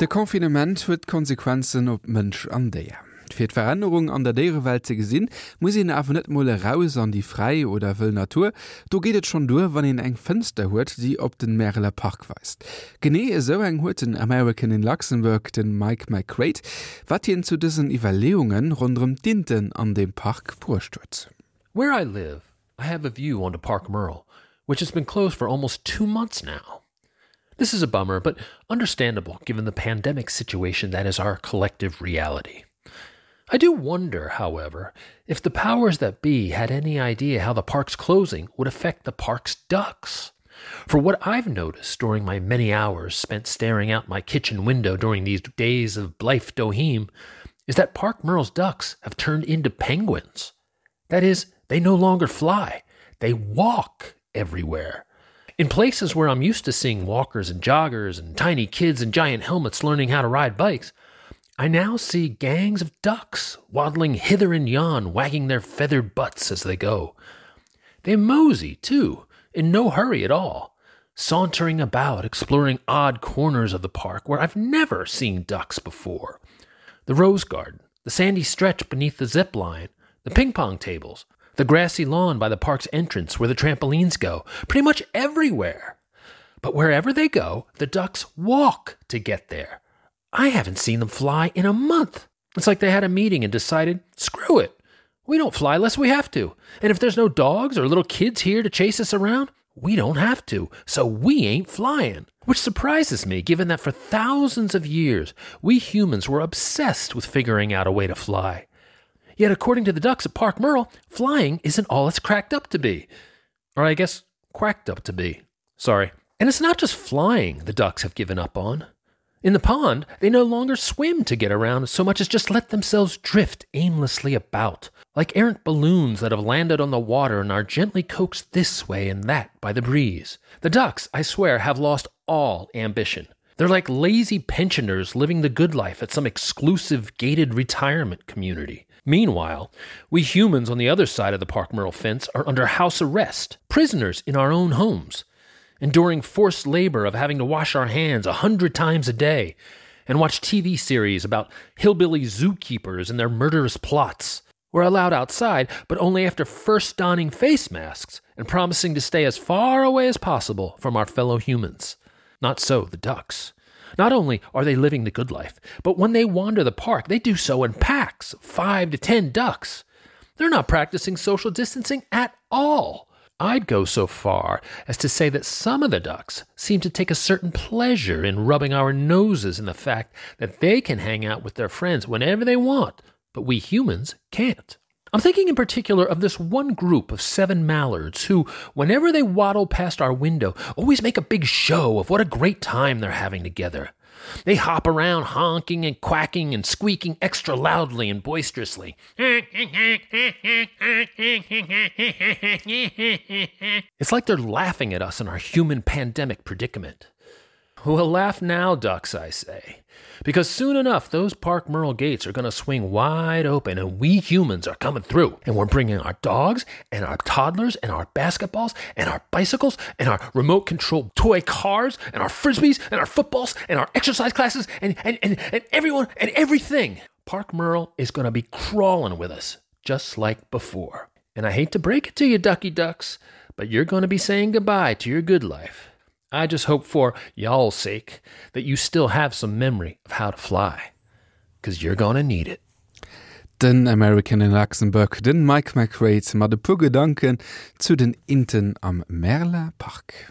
De Konfinement huet Konsequenzen op Mënsch an déier. Fir d'Veränderung an der Dierewelt ze gesinn, muss en awer net molle raus an die frei oder wëll Natur, do gehtet schon dur, wann en eng Fënster huet, die op den Merler Park weist. Genee eso eng huet den American in Luxemburg den Mike McCrate, wat hien zu diesen Evaluungen rundum Dinten an dem Park vorstürzt. Where I live, I have a view onto Park Merle, which has been closed for almost 2 months now. This is a bummer, but understandable given the pandemic situation that is our collective reality. I do wonder, however, if the powers that be had any idea how the park's closing would affect the park's ducks. For what I've noticed during my many hours spent staring out my kitchen window during these days of Blythe Doheem is that Park Merle's ducks have turned into penguins. That is, they no longer fly, they walk everywhere. In places where I'm used to seeing walkers and joggers and tiny kids in giant helmets learning how to ride bikes, I now see gangs of ducks waddling hither and yon, wagging their feathered butts as they go. They mosey, too, in no hurry at all, sauntering about, exploring odd corners of the park where I've never seen ducks before. The rose garden, the sandy stretch beneath the zip line, the ping-pong tables, the grassy lawn by the park's entrance where the trampolines go, pretty much everywhere. But wherever they go, the ducks walk to get there. I haven't seen them fly in a month. It's like they had a meeting and decided, screw it. We don't fly unless we have to. And if there's no dogs or little kids here to chase us around, we don't have to. So we ain't flying. Which surprises me, given that for thousands of years, we humans were obsessed with figuring out a way to fly. Yet according to the ducks at Park Merle, flying isn't all it's cracked up to be. Or I guess, quacked up to be. Sorry. And it's not just flying the ducks have given up on. In the pond, they no longer swim to get around so much as just let themselves drift aimlessly about, like errant balloons that have landed on the water and are gently coaxed this way and that by the breeze. The ducks, I swear, have lost all ambition. They're like lazy pensioners living the good life at some exclusive gated retirement community. Meanwhile, we humans on the other side of the Park Merle fence are under house arrest, prisoners in our own homes, enduring forced labor of having to wash our hands 100 times a day and watch TV series about hillbilly zookeepers and their murderous plots. We're allowed outside, but only after first donning face masks and promising to stay as far away as possible from our fellow humans. Not so the ducks. Not only are they living the good life, but when they wander the park, they do so in packs of 5 to 10 ducks. They're not practicing social distancing at all. I'd go so far as to say that some of the ducks seem to take a certain pleasure in rubbing our noses in the fact that they can hang out with their friends whenever they want, but we humans can't. I'm thinking in particular of this one group of 7 mallards who, whenever they waddle past our window, always make a big show of what a great time they're having together. They hop around honking and quacking and squeaking extra loudly and boisterously. It's like they're laughing at us in our human pandemic predicament. Well, laugh now, ducks, I say. Because soon enough, those Park Merle gates are going to swing wide open and we humans are coming through. And we're bringing our dogs and our toddlers and our basketballs and our bicycles and our remote-controlled toy cars and our frisbees and our footballs and our exercise classes and everyone and everything. Park Merle is going to be crawling with us, just like before. And I hate to break it to you, ducky ducks, but you're going to be saying goodbye to your good life. I just hope for y'all's sake that you still have some memory of how to fly, because you're gonna need it. Den American in Luxemburg, den Mike McCrate, mat de pu Gedanken zu den Inten am Merler Park.